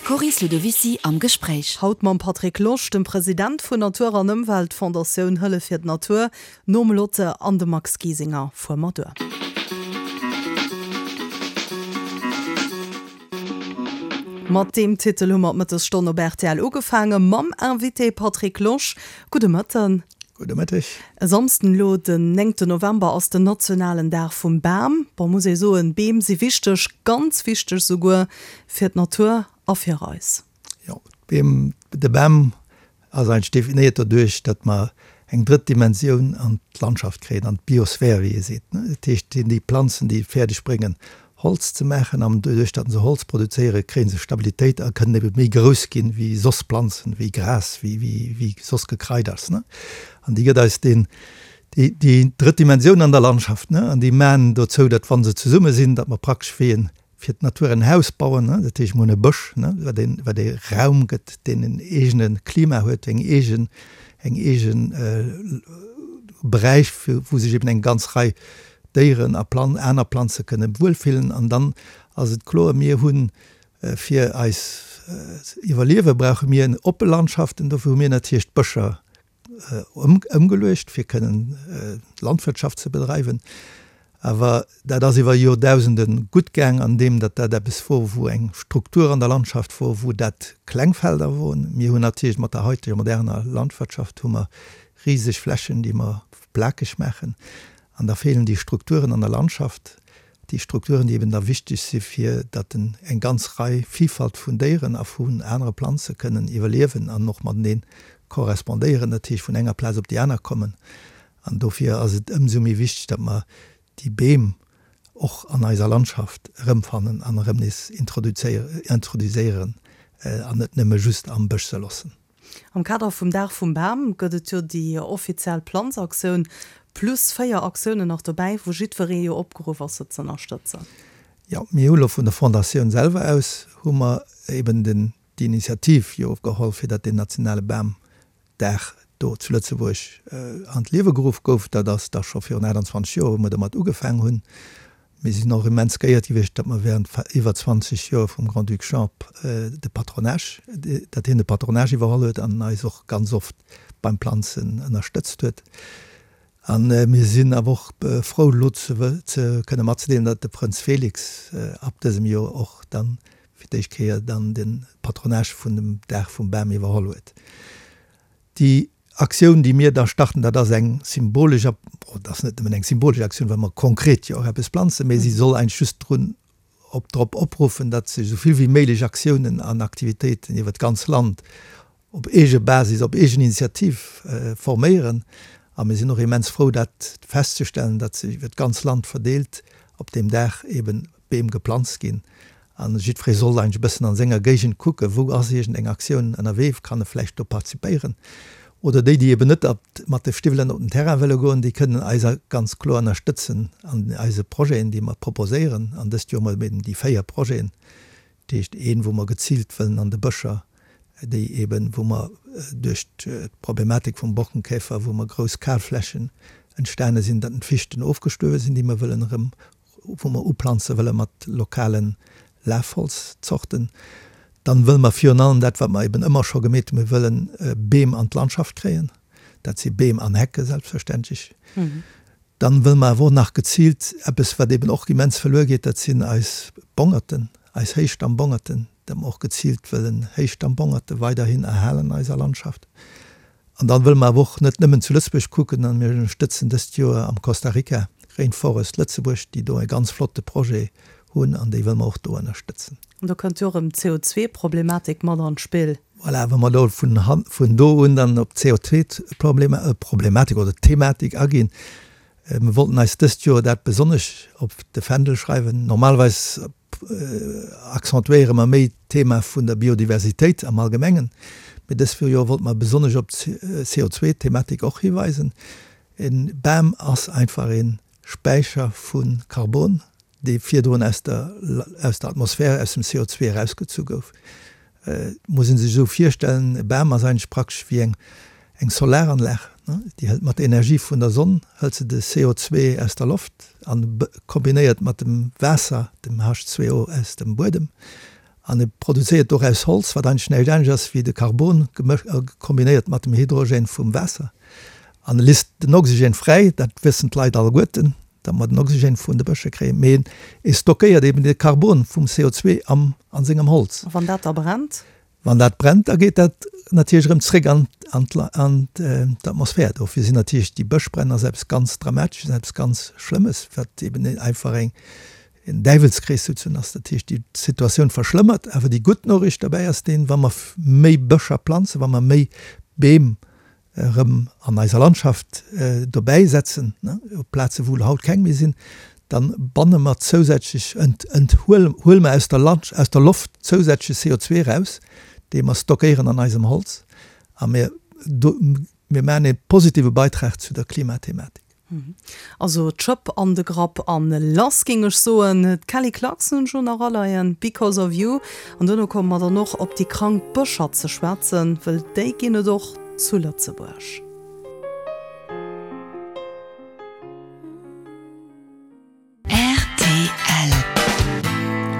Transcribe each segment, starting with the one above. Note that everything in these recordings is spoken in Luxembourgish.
D'Coris Ludovicy am Gespréich. Haut mam Patrick Losch, dem President vun Natur an Ëmwelt Fondatioun Hëllef fir d'Natur, nom Lotte an dem Max Giesinger fuer mer duer. Mat deem Titel hu mer d'Mëttesstonn op rtl ugefaange mam Invité Patrick Losch. Gudde Mëtten. Gudde Mëtteg. E Samsden elo, den néngten November, ass den nationalen Dag vum Bam. Bon, muss ee soen, Beem si wichteg, ganz wichteg souguer fir d'Natur a fir eis. Jo, d'Beem, de Bam ass eigentlech definéiert doduerch, datt mer eng drëtt Dimensioun an d'Landschaft kréien, an d'Biosphär, wéi ee seet. Dat heescht, et sinn déi Planzen, déi et fäerdeg bréngen, Holz ze maachen an doduerch datt se Holz produzéieren, kréie se Stabilitéit a kënnen ebe méi grouss ginn wéi soss Planzen, wéi Gras, wéi wéi soss Gekraiders, ne. An déi gëtt eis deen déi déi drëtt Dimensioun an der Landschaft, ne. An déi maan dozou, datt wa se zesumme sinn, datt mer praktesch wéi en fir d'Natur en Haus bauen, ne. Dat heescht, mer hunn e Bësch, ne, wat een wat ee Raum gëtt, deen en eegene Klima huet, eng eegen eng eegen Beräich, wou sech eben eng ganz Rei Déieren a Plan aner Planze kënne wuelfillen. An dann ass et kloer, mir hu fir eis Iwwerliewe brauche mir oppe Landschaften. Dofir hu mir natierlech d'Bëscher ëmgeluecht, fir kënnen Landwirtschaft ze bedreiwen. Awer dat ass iwwer Joerdausende gutt gaang, an deem datt dat eppes wor, wou eng Struktur an der Landschaft wor, wou dat kleng Felder woren. Mir hunn natierlech mat der haiteger moderner Landwirtschaft hu mer riseg Flächen, déi mer plakeg maachen. An da feelen déi Strukturen an der Landschaft, déi Strukturen, déi eben da wichteg si fir datt eng ganz Rei Villfalt vun Déieren a vun anere Planze kënnen iwwerliewen an och matenee korrespondéieren, dat heescht vun enger Plaz op déi aner kommen. An dofir ass et ëmsou méi wichteg, datt mer déi Beem och an eiser Landschaft erëmfannen an erëm nees introduzéieren an net nëmme just am Bësch se loossen. Am Kader vum Dag vum Bam gëtt et jo déi offiziell Planzaktioun, plus 4 Aktiounen nach dobäi, wou jiddweree jo opgeruff ass, se z'ënnerstëtzen. Jo, mir hu lo vun der Fondatioun selwer aus hu mer eben den, déi Initiativ jo geholl, fir datt deen nationale Bamdag do zu Lëtzebuerg an d'Liewe geruff gouf. Dat ass da scho virun 28 Joer, wou mer domat ugefaang hunn. Mir sinn och immens geéiert gewiescht, datt mer während iwwer 20 Joer vum Grand-Duc Jean de Patronage, datt hien de Patronage iwwerholl huet an eis och ganz oft beim Planzen ënnerstëtzt huet. A mir sinn awer och frou elo ze kënne matzedeelen, datt de Prënz Félix ab dësem Joer och dann fir d'éischt Kéier dann de Patronage vun dem Dag vum Bam iwwerholl huet. Déi Aktioun, déi mir da starten, dat ass eng symbolesch, bon, dat ass net nëmmen eng symbolesch Aktioun, well mer konkret jo och eppes planzen, mä si soll eigentlech just drun, op, drop opruffen, datt sech esou vill wéi méiglech Aktiounen an Aktivitéiten iwwert d'ganz Land op eege Basis, op eegen Initiativ forméieren. A mir sinn och immens frou, dat festzestellen, datt sech iwwert d'ganz Land verdeelt op deem Dag eeben Beem geplanzt ginn an jiddweree soll eigentlech e bëssen an senger Géigend kucken, wou ass iergend eng Aktioun ënnerwee, kann e vläicht do participéieren. Oder déi, déi eben net mat de Stiwwelen op den Terrain wëlle goen, déi kënnen eis ganz kloer ënnerstëtzen an eise Projeten, déi mer proposéieren. An dëst Joer hu mer eben déi 4 Projeten, dat heescht een, wou mer geziilt wëllen an de Bëscher, déi eben, wou mer duerch d'Problematik vum Borkenkäfer, wou mer grouss Kalflächen entstane sinn, datt d'Fichten ofgestuerwe sinn, déi mer wëllen erëm wou mer uplanze wëlle mat lokale Lafholzzorten. Dann wëlle mer virun allem dat, wat mer eben ëmmer scho gemeet hunn, mir wëllen Beem an d'Landschaft kréien. Dat si Beem an Hecke selbstverständlech. Dann wëlle mer awer och nach geziilt eppes, wat eben och immens verluer geet, dat sinn eis Bongerten, eis Héichstammbongerten, dat mer och geziilt wëllen Héichstammbongerte weiderhin erhalen an eiser Landschaft. An dann wëlle mer awer och net nëmmen zu Lëtzebuerg kucken, an mir ënnerstëtzen dëst Joer am Costa Rica Rainforest Lëtzebuerg, déi do e ganz flotte Projet hunn an déi wëlle mer och do ënnerstëtzen. An do kënnt jo och erëm d'CO2-Problematik mat an d'Spill. Voilà, wa mer do vun vun do un dann op d'CO2-Problematik oder Thematik aginn, Mir wollten eis dëst Joer dat besonnesch op de Fändel schreiwen. Normalerweis accentuéiere mer méi d'Thema vun der Biodiversitéit am Allgemengen, mee dës Joer wollte mer besonnesch op d'CO2-Thematik och hiweisen. E Bam ass einfach e Späicher vu Karbon, dee virdrun aus der aus der Atmosphär, aus dem CO2 erausgezu gouf. Et muss ee sech esou virstellen, e Bam ass eigentlech praktesch wéi eng eng Solaranlag, déi hëlt mat der Energie vun der Sonn hëlt se de CO2 aus der Loft an kombinéiert mat dem Waasser, dem H2O aus dem Buedem. An e produzéiert doraus Holz, wat eigentlech näischt anescht ass wéi de Karbon kombinéiert mat dem Hydrogène vum Waasser. An e lisst den Oxygène fräi, dat wëssen d'Leit alleguerten, datt mer den Oxygène vun de Bësche kréien, mee e stockéiert eben de Karbon vum CO2 am a sengem Holz. A wann dat da brennt? Wann dat brennt, da geet dat natierlech erëm zréck an d'Atmosphär. Dofir sinn natierlech déi Bëschbränn ass eppes ganz Dramatesches, eppes ganz Schlëmmes, wat eben einfach eng en Däiwelskrees souzesoen ass. Dat heescht, déi Situatioun verschlëmmert. Awer déi gutt Noriicht derbäi ass deen, wa mer méi Bëscher planzen, wa mer méi Beem erëm an eiser Landschaft dobäi setzen, op Plaze wou haut keng méi sinn, da banne mer zousätzlech, huele mer aus der aus der Loft zousätzleche CO2 eraus, dee mer stockéieren an eisem Holz a mir mir maachen e positive Beitrag zu der Klimathematik. Also d'Schëpp an de Grapp an lass géing ech soen. D'Kelly Clarkson hunn ech elo nach aleien, Because of You. An duerno komme mer dann och op déi krank Bëscher ze schwätzen, wëll déi ginn et och zu Lëtzebuerg. Rtl.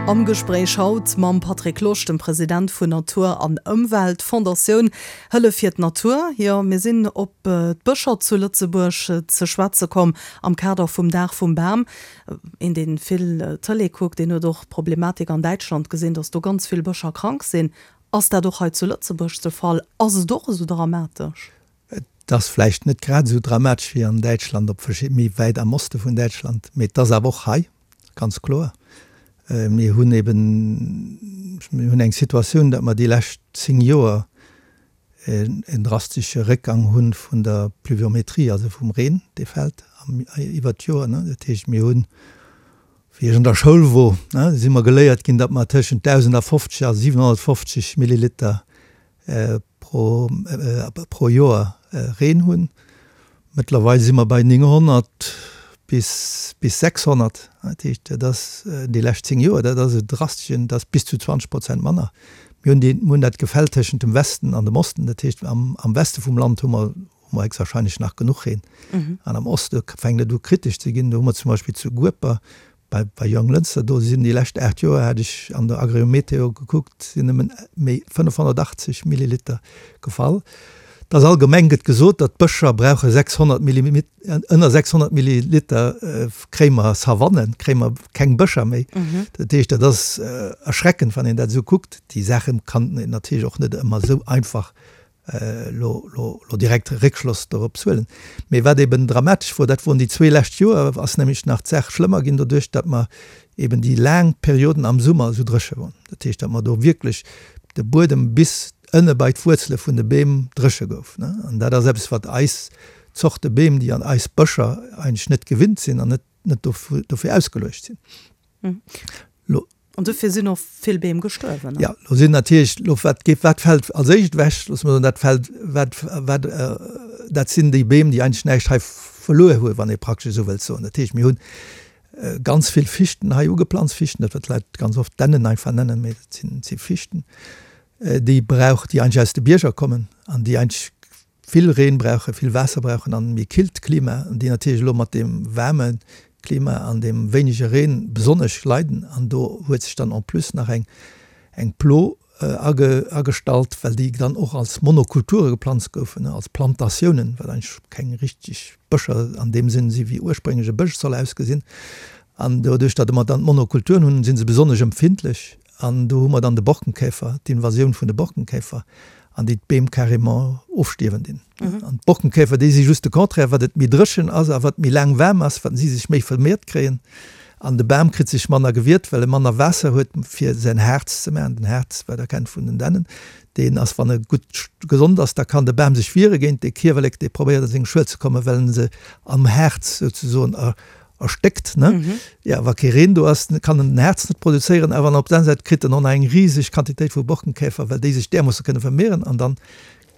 Am Gespréich haut mam Patrick Losch, dem President vun Natur an Ëmwelt Fondatioun Hëllef fir d'Natur. Jo, mir sinn op d'Bëscher zu Lëtzebuerg ze schwätze komm am Kader vum Dag vum Bam. Een, dee vill Tëlee kuckt, deen huet och d'Problematik an Däitschland gesinn, datt do ganz vill Bëscher krank sinn. Ass dat och hei zu Lëtzebuerg de Fall? Ass et och esou dramatesch? Et ass vläicht net grad esou dramatesch wéi an Däitschland, op verschid-, méi wäit am Oste vun Däitschland, mee et ass awer och hei, ganz kloer. Mir hunn eben, mir hunn eng Situatioun, datt mer déi lescht 10 Joer en drastesche Réckgang hu vun der Pluviometrie, also vum Reen, dee fält iwwert d'Joer. Dat heescht, mir hunn, wéi ech an der Schoul wor, si mer geléiert ginn, datt mer tëschent 1.050 a 750 Milliliter pro pro Joer Reen hunn. Mëttlerweil si mer bei 900 bis bis 600. Dat heescht, dat ass déi lescht 10 Joer, dat ass e drasteschen, dat ass bis zu 20 Prozent manner. Mir hunn déi, mir hunn dat Gefäll tëschent dem Westen an dem Osten. Dat heescht, am am Weste vum Land hu mer hu mer héchstwahrscheinlech nach genuch Reen. An am Oste fänkt et u kritesch ze ginn. Do hu mer zum Beispill zu Gueper Bei bei Jonglënster, do sinn déi lescht 8 Joer, hat ech an der Agriometeo gekuckt, sinn nëmmen méi 580 Milliliter gefall. Et ass allgemeng gëtt gesot, datt d'Bëscher brauche 600 Millimi ënner 600 Milliliter kréie mer Savannen, kréie mer keng Bëscher méi. Dat heescht, dat ass erschreckend, wann een dat esou kuckt. Déi Saache kann een natierlech och net ëmmer esou einfach lo lo lo direkt Réckschloss dorops huelen. Mee wat eben dramatesch wor, dat woren déi zwee lescht Joer, ass nämlech nach d'Saach schlëmmer ginn doduerch, datt mer eben déi laang Perioden am Summer esou dréche wor. Dat heescht, datt mer do wierklech de Buedem bis ënne bei d'Wuerzele vun de Beem dréche gouf, ne. An dat ass eppes, wat eis Zorte Beem, déi an eis Bëscher eigentlech net gewinnt sinn an net net dofir ausgeluecht sinn. Lo. An dofir sinn och vill Beem gestuerwen, ne? Jo, lo sinn natierlech, lo wat geet, wat fält als éischt ewech? Loosse mer soen, dat fält, wat, wat, dat sinn déi Beem, déi eigentlech näischt hei verluer hunn, wann ee praktesch esou wëllt soen. Dat heescht, mir hunn ganz vill Fichten hei ugeplanzt, Fichten, dat wat d'Leit ganz oft Dännen einfach nennen, mee dat sinn, si Fichten, déi brauch, déi eigentlech aus de Bierger kommen an déi eigentlech vill Reen brauchen, vill Waasser brauchen an méi killt Klima, an déi natierlech elo mat deem waarme Klima an deem wéinege Reen besonnesch leiden. An do huet sech dann en plus nach eng eng Plo age agestallt, well déi dann och als Monokulture geplanzt goufen, als Plantatiounen, wat eigentlech keng richteg Bëscher an deem Sënn si wéi ursprénglech e Bësch soll ausgesinn. An doduerch, datt mer dann d'Monokulturen hunn, si se besonnesch empfindlech. An do hu mer dann de Borkenkäfer, d'Invasioun vun de Borkenkäfer, an déi d'Beem carrément ofstierwen dinn. An d'Borkenkäfer, déi si just de Contraire, wat et méi dréchen ass a wat méi laang waarm ass, wat si sech méi vermeert kréien. An de Bam kritt sech manner gewiert, well e manner Waasser huet, fir säin Haarz ze maachen. Den Haarz, wat Der kennt vun den Dännen, deen ass, wann e gutt gesond ass, da kann de Bam sech wiere géint dee Kiewerlek, dee probéiert a seng Schuel ze kommen, well en se am Haarz souzesoen erstéckt, ne? Jo, wa kee Reen do ass, kann en den Haarz net produzéieren, awer an op der aner Säit kritt en och nach eng riseg Quantitéit vu Borkenkäfer, well déi sech därmoosse kënne vermehren an dann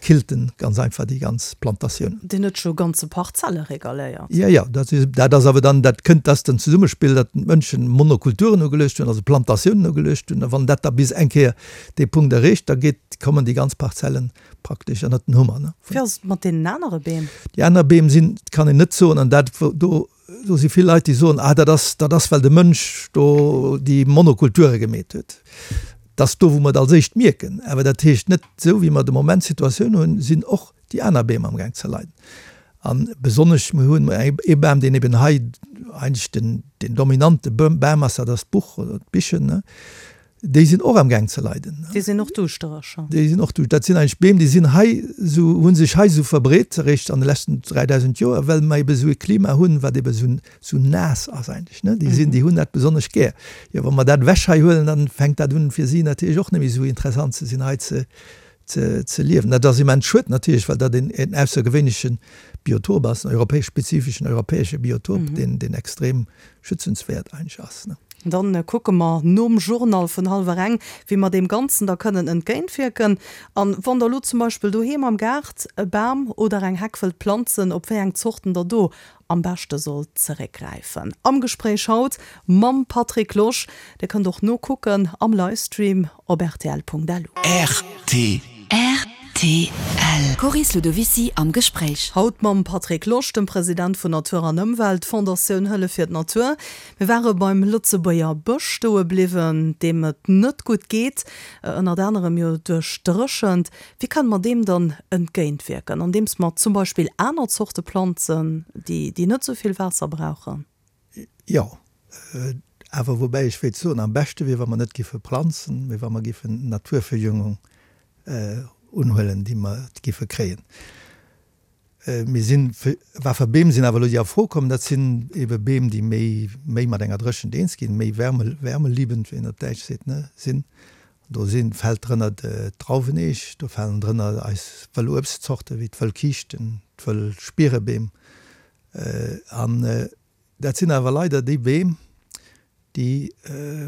killt en ganz einfach déi ganz Plantatioun. Deen huet scho ganze Parzelle regaléiert. Jo, jo, dat is, dat ass awer dann, dat kënnt, dat ass den Zesummespill, datt d'Mënschen Monokulturen ugeluecht hunn, also Plantatiounen ugeluecht hunn, a wann dat da bis eng Kéier dee Punkt erreecht, da geet, kommen déi ganz Parzellen praktesch ënnert den Hummer. Ne? Wéi ass et mat deenen anere Beem? Déi aner Beem sinn, kann een net soen, an dat do, do si vill Leit, déi soen, ah dat ass, dat ass well de Mënsch do déi Monokulture gemeet huet. Et ass do, wou mer et als éischt mierken. Awer dat heescht net, esou wéi mer de Moment d'Situatioun hunn, sinn och déi aner Beem amgaang ze leiden. A besonnesch, mir hunn ee Bam, deen eben hei eigentlech den, den dominante Bam ass, dat ass d'Buch oder d'Bichen. Déi sinn och amgaang ze leiden. Déi sinn och duuschtereg. Déi sinn och duuschtereg. Dat sinn eigentlech Beem, déi sinn hei esou, hu sech hei esou verbreet eréischt an de leschten 3.000 Joer, well mer ebe esou e Klima hunn, wat ebe esou, esou naass ass eigentlech, ne. Déi sinn, déi hunn dat besonnesch gär. Jo, wa mer dat ewech hei huelen, dann fänkt dat un, fir si natierlech och net méi esou interessant ze sinn, hei ze, ze, ze liewen. Dat ass immens schued natierlech, well dat een, een aussergewéinleche Biotop ass, en europäesch, spezifeschen europäesche Biotop, deen, deen extrem schützenswäert eigentlech ass, ne. Dann kucke mer nom Journal vun hallwer eng, wéi mer deem Ganzen da kënnen entgéintwierken. An wann der elo zum Beispill doheem am Gaart e Bam oder eng Heck wëllt planzen, op wéi eng Zorten der do am beschte sollt zeréckgräifen. Am Gespréich haut mam Patrick Losch. Dir kënnt och nokucken am Livestream op rtl.lu. Rtl. Coris Ludovicy am Gespréich. Haut mam Patrick Losch, dem President vun Natur an Ëmwelt, Fondatioun Hëllef fir d'Natur. Mir ware beim Lëtzebuerger Bësch stoe bliwwen, deem et net gutt geet, ënnert anerem jo duerch d'Dréchent. Wéi kënne mer deem dann entgéintwierken? Andeems mer zum Beispill aner Zorte planzen, déi net esou vill Waasser brauchen? Jo, awer woubäi ech wéilt soen, am beschte wier, wa mer net giffe planzen, mee wa mer giffen Naturverjüngung unhuelen, déi mer giffe kréien. Mir sinn, wat fir Beem sinn awer elo déi a Fro kommen? Dat sinn ebe Beem, déi méi, méi mat enger Dréchent eens ginn, méi wärme, wärmeliebend, wéi een op Däitsch seet, ne, sinn. Do sinn, fält drënner d'Drauweneech, do falen drënner eis wëll Uebstzorte wéi d'wëll Kiischten, d'wëll Spierebeem. An dat sinn awer leider déi Beem, déi,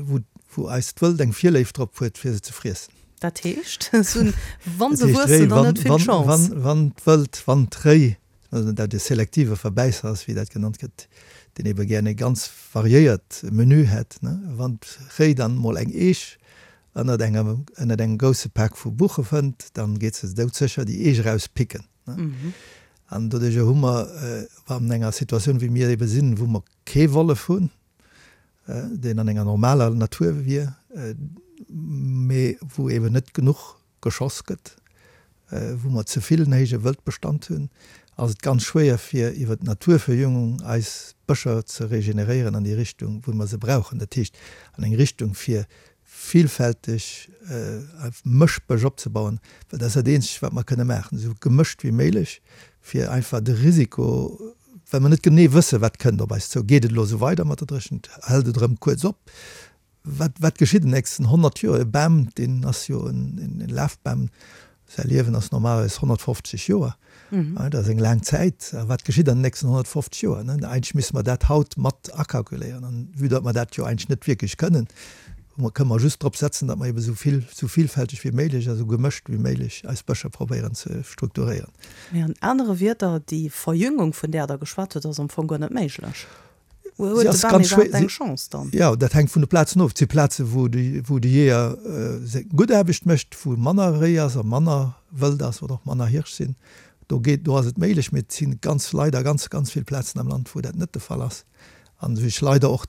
wou, wou eist Wëld eng Virléift drop huet, fir se ze friessen. Dat heescht, se hunn, wa se wuessen, dann net vill Chance. Wann d'Wëld, wann d'Réi, dat e selektive Verbäisser ass, wéi dat genannt gëtt, deen ebe gären e ganz variéiert Menü hätt, wann d'Réi dann emol eng Eech ënnert engem, ënnert engem grousse Pak vu Buche fënnt, dann geet se doudsécher déi Eech erauspicken. An doduerjer hu mer an enger Situatioun, wéi mir ebe sinn, wou mer kee Wollef hunn, deen an enger normaler Natur wier, mee wou eben net genuch geschoss gëtt, wou mer ze vill en héije Wëldbestand hunn, ass et ganz schwéier fir iwwer d'Naturverjüngung eis Bëscher ze regeneréieren an déi Richtung, wou mer se brauchen, dat heescht an eng Richtung fir villfälteg Mëschbësch opzebauen, well dat ass dat eenzegt, wat mer kënne maachen, esou gemëscht wéi méiglech, fir einfach de Risiko, well mer net genee wëssen, wat kënnt op eis zou, geet et elo esou weider mat der Dréchent, hält et erëm kuerz op, wat, wat geschitt an den nächsten 100 Joer? E Bam, deen ass jo en Lafbam, Säi Liewen ass normalerweis 150 Joer. Dat ass eng laang Zäit. A wat geschitt an den nächsten 150 Joer? Eigentlech misste mer dat haut mat akalkuléieren. An vue datt mer dat jo eigentlech net wierklech kënnen, kënne mer just drop setzen, datt mer ebe sou vill, sou villfälteg wéi méiglech a sou gemëscht wéi méiglech eis Bëscher probéieren ze strukturéieren. Mee an anere Wierder, déi Verjüngung, vun där Der geschwat hutt, ass am Fong guer net méiglech. Huet de Bam iwwerhaapt eng Chance dann? Jo, dat hänkt vun de Plazen of. Et si Plazen, wou de, wou de Jeeër seng gutt Aarbecht mécht, wou manner Réi ass a manner Wëld ass oder och manner Hirsch sinn. Do geet, do ass et méiglech. Mee et si ganz, leider ganz, ganz vill Plazen am Land, wou dat net de Fall ass an wou sech leider och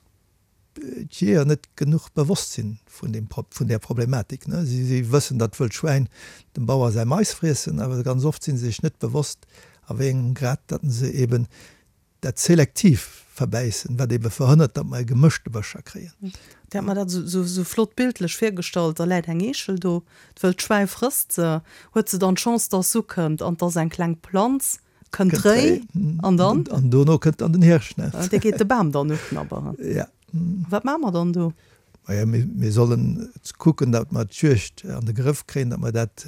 d'Jeeër net genuch bewosst sinn vun deem, vun där Problematik. Si, si wëssen, datt wëllt Schwäin dem Bauer säi Mais friessen, awer ganz oft si se sech net bewosst, a wéi engem Grad datt se eben Dat selektiv Verbäissen, wat ebe verhënnert, datt mer e gemëschte Bëscher kréien. Dir hat mer dat esou flott bildlech virgestallt, da läit eng Eechel do, d'wëllt Schwäi frësst se, huet se dann d'Chance, dass se ukënnt an 't ass eng kleng Planz, kënnt d'Réi an dann? An dono kënnt dann den Hirsch, ne? Dee geet de Bam dann uknabberen. Ja. Wat maache mer dann do? Maja, mir sollen kucken, datt mer d'Juegd an de Grëff kréien, datt mer dat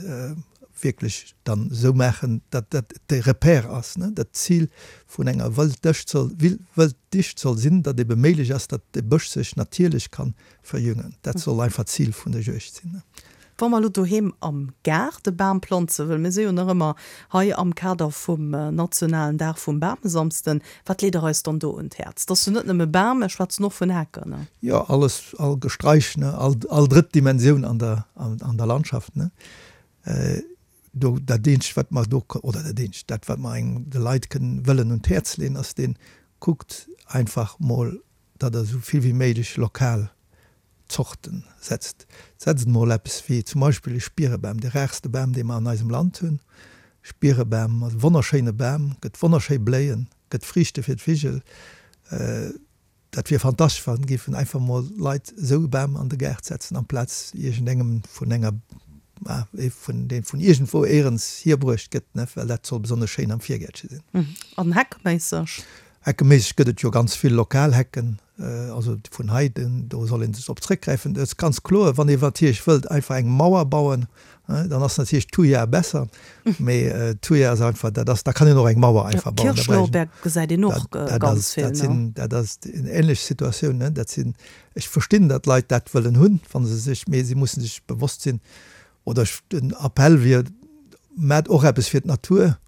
wierklech dann esou maachen, datt dat de Repère ass. Dat d'Zil vun enger Wëlddicht soll, Wëlddicht soll sinn, datt ebe méiglech ass, datt de Bësch sech natierlech ka verjüngen. Dat soll einfach d'Zil vun der Juegd sinn. Wa mer elo doheem am Gaart e Bam planze wëllen, mir si jo nach ëmmer hei am Kader vum nationalen Dag vum Bamesamsden, wat leet Der eis dann do un d'Häerz? Et ass jo net nëmme Bam, mir schwätzen och vun Hecken, ne? Jo, alles, all Gesträich, ne, all, all drëtt Dimensioun an der, an der Landschaft, ne. Do, dat eenzegt, wat mer do, oder dat eenzegt, dat wat mer engem, de Leit kënnen, wëllen un d'Häerz leeën, ass deen, kuckt einfach mol, datt Der esou vill wéi méiglech lokal. Zorten setzt. Setzt emol eppes wéi zum Beispill e Spierebam, de rarste Bam, dee mer an eisem Land hunn. Spierebam ass e wonnerschéine Bam, gëtt wonnerschéi Bléien, gëtt Friichte fir d'Vigel. Dat wier fantastesch, wa géifen einfach mol Leit esou e Bam an de Gaart setzen, amplaz iergendengem vun enger, ee vun, dee vun iergendwou éierens hierbruecht gëtt, ne, well dat soll besonnesch schéin am Virgäertche sinn. An heckeméisseg? Heckeméisseg gëtt et jo ganz vill lokal Hecken, also vun hei, do soll ee sech drop zréckgräifen. Et ass ganz kloer, wann ee natierlech wëllt einfach eng Mauer bauen, Dann ass natierlech d'Thuja besser, mee d'Thuja ass einfach, dat ass, da kann een och eng Mauer einfach bauen. Kirschlorbeer gesäit een och ganz vill, ne? Dat ass eng ähnlech Situatioun, ne? Dat sinn, ech verstinn, datt Leit dat wëllen hunn, wa se sech, mee si musse sech bewosst sinn, oder ech, den Appell wier, Maacht och eppes fir d'Natur.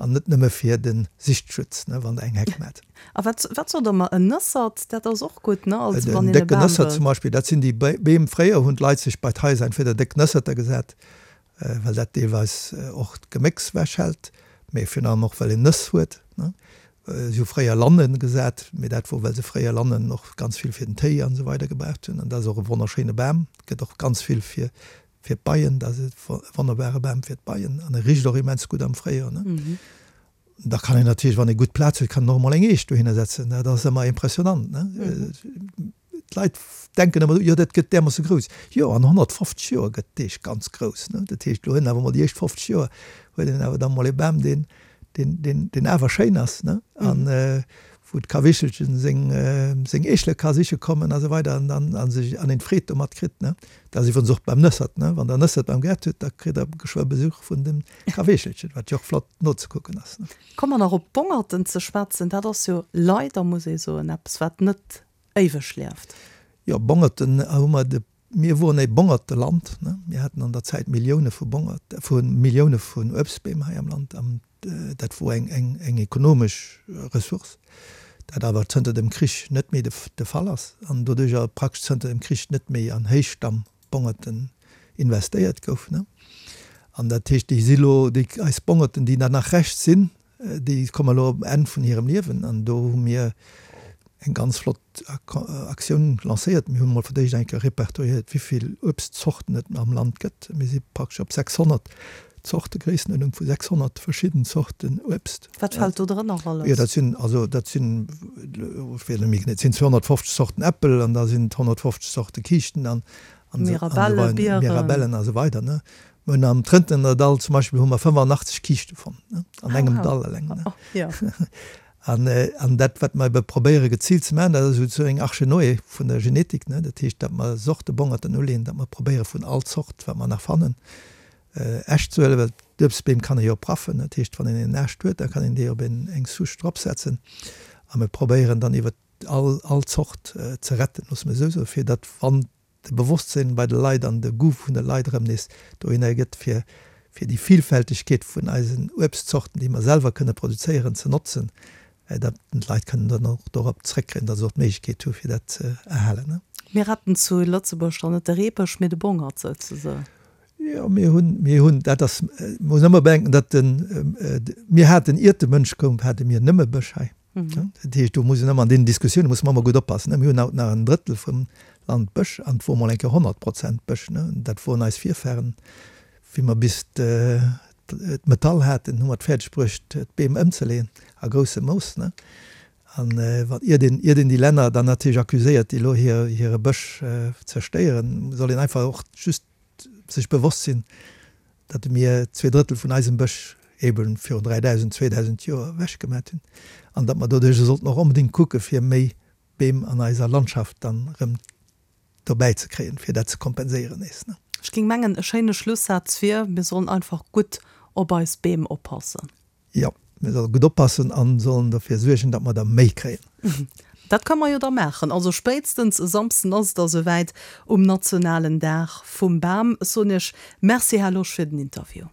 An net nëmme fir de Sichtschutz, ne, wann der eng Heck maacht. A wat, wat sot der mer, en Nëssert, dat ass och gutt, ne, als wann een e Bam wëllt. Zum Beispill, dat sinn déi Beem, fréier hunn d'Leit sech bei d'Haiser entweder déck Nësserter gesat, well dat deelweis och d'Gemécks wechhält, mee virun allem och well een Nëss huet, ne. Si hu fréier Lannen gesat, mee dat wor, well se fréier Lannen och ganz vill fir den Téi an esou weider gebraucht hunn. An dat ass och e wonnerschéine Bam, gëtt och ganz vill fir Fir d'Beien, dat ass e wonnerbare Bam fir d'Beien an e richt och immens gutt am Fréijoer. Ne? Da kann een natierlech, wann ee gutt Plaz huet, kann een och emol eng Eech dohinner setzen. Dat ass ëmmer impressionant. Ne? D'Leit denken ëmmer, jo dat gëtt därmoosse grouss. Jo, an 150 Joer gëtt d'Eech ganz grouss. Ne? Dat heescht, lo huet een awer emol déi éischt 50 Joer huet een awer da mol e Bam, deen, deen, deen, deen awer schéin ass, ne? An wou d'Kawichelchen seng, seng Eechele ka siche kommen a sou weider an dann a sech an een d'Freed domat kritt, ne? Dat ass iwwerens och beim Nëssert, ne? Wann der Nëssert beim Gaart hutt, da kritt der geschwë Besuch vun dem Kaweechelchen, wat jo och flott nozekucken ass, ne? Komme mer nach op d'Bongerten ze schwätzen. Dat ass jo leider, muss ee soen, eppes wat net éiweg lieft. Jo, Bongerten hu mer de Mir woren e Bongerteland, ne? Mir haten an der Zäit Millioune vu Bongert, vu Millioune vun Uebstbeem hei am Land an dat wor eng, eng, eng ekonomesch Ressource, dat awer zënter dem Krich net méi de, de Fall ass an doduercher praktesch zënter dem Krich net méi an Héichstamm-Bongerten investéiert gouf, ne? An dat heescht, déi si lo, déi, eis Bongerten, déi da nach Rescht sinn, Déi komme elo um Enn vun hirem Liewen an do hu mir eng ganz flott Aktioun lancéiert. Mir hu mol fir d'éischt eng Kéier repertoriéiert, wéi vill Uebstzorten et am Land gëtt. Mir si praktesch op 600 Zorte, Gréissenuerdnung vu 600 verschidden Zorten Uebst. Wat fält do drënner alles? Jo, dat sinn also dat sinn, ech weess net méi genee, et sinn 250 Zorten Äppel an da sinn et 150 Zorte Kiischten an Mirabelle, Bieren. Mirabellen a sou weider, ne. Mir hunn am Trëntener Dall zum Beispill hu mer 85 Kiischte fonnt, ne, an engem Dall eleng, ne. An, an dat, wat mer ebe probéiere geziilt ze maachen, dat ass esou eng Arche Noé vun der Genetik, ne. Dat heescht, datt mer Sortebongerten uleeën, datt mer probéiere vun all Zort, wat mer nach fannen, Äscht ze huelen, well d'Uebstbeem kann ee jo praffen. Dat heescht, wann een een Aascht huet, da kann een dee op een, eng Souche dropsetzen. A mir probéieren dann iwwer all, all Zort ze retten, loosse mer esou soen, fir datt wann de Bewosstsinn bei de Leit an de Goût vun de Leit erëm nees dohinner gëtt, fir fir déi Vielfältegkeet vun eisen Uebstzorten, déi mer selwer kënne produzéieren, ze notzen, datt d'Leit kënnen dann och dorop zrëckkréien, datt se och d'Méiglechkeet hu fir dat ze erhalen. Mir retten zu Lëtzebuerg dann net de Reebësch, mee de Bongert souzesoen. Jo, mir hunn, mir hunn, dat ass, muss ëmmer bedenken, datt den, mir haten, iert de Mënsch koum, hate mir nëmme Bësch hei. Dat heescht, do muss een ëmmer an deenen Diskussioune muss mer ëmmer gutt oppassen. Mir hunn haut nach en Drëttel vum Land Bësch an et wor mol eng Kéier 100 Prozent Bësch. Dat woren eis Virfahren. Wéi mer bis d'Metall haten, hu mer et fäerdeg bruecht, d'Beem ëmzeleeën a groussem Mooss. An wat, iert een, iert een déi Länner dann natierlech accuséiert, déi elo hire Bësch zerstéieren, soll een einfach och just sech bewosst sinn, datt mir 2/3 vun eisem Bësch eben virun 3.000, 2.000 Joer ewech gemat hunn an datt mer doduercher sollten och onbedéngt kucke fir méi Beem an eiser Landschaft dann erëm dobäi ze kréien, fir dat ze kompenséieren nees. Ech géing mengen, e schéine Schlussaz wier, Mir sollen einfach gutt op eis Beem oppassen. Jo, mir solle gutt oppassen an sollen dofir suergen, datt mer der méi kréien. Dat kënne mer jo da maachen. Also spéitstens e Samsden ass et da souwäit, um nationalen Dag vum Bam. Ech soen Iech Merci, Här Losch, fir den Interview.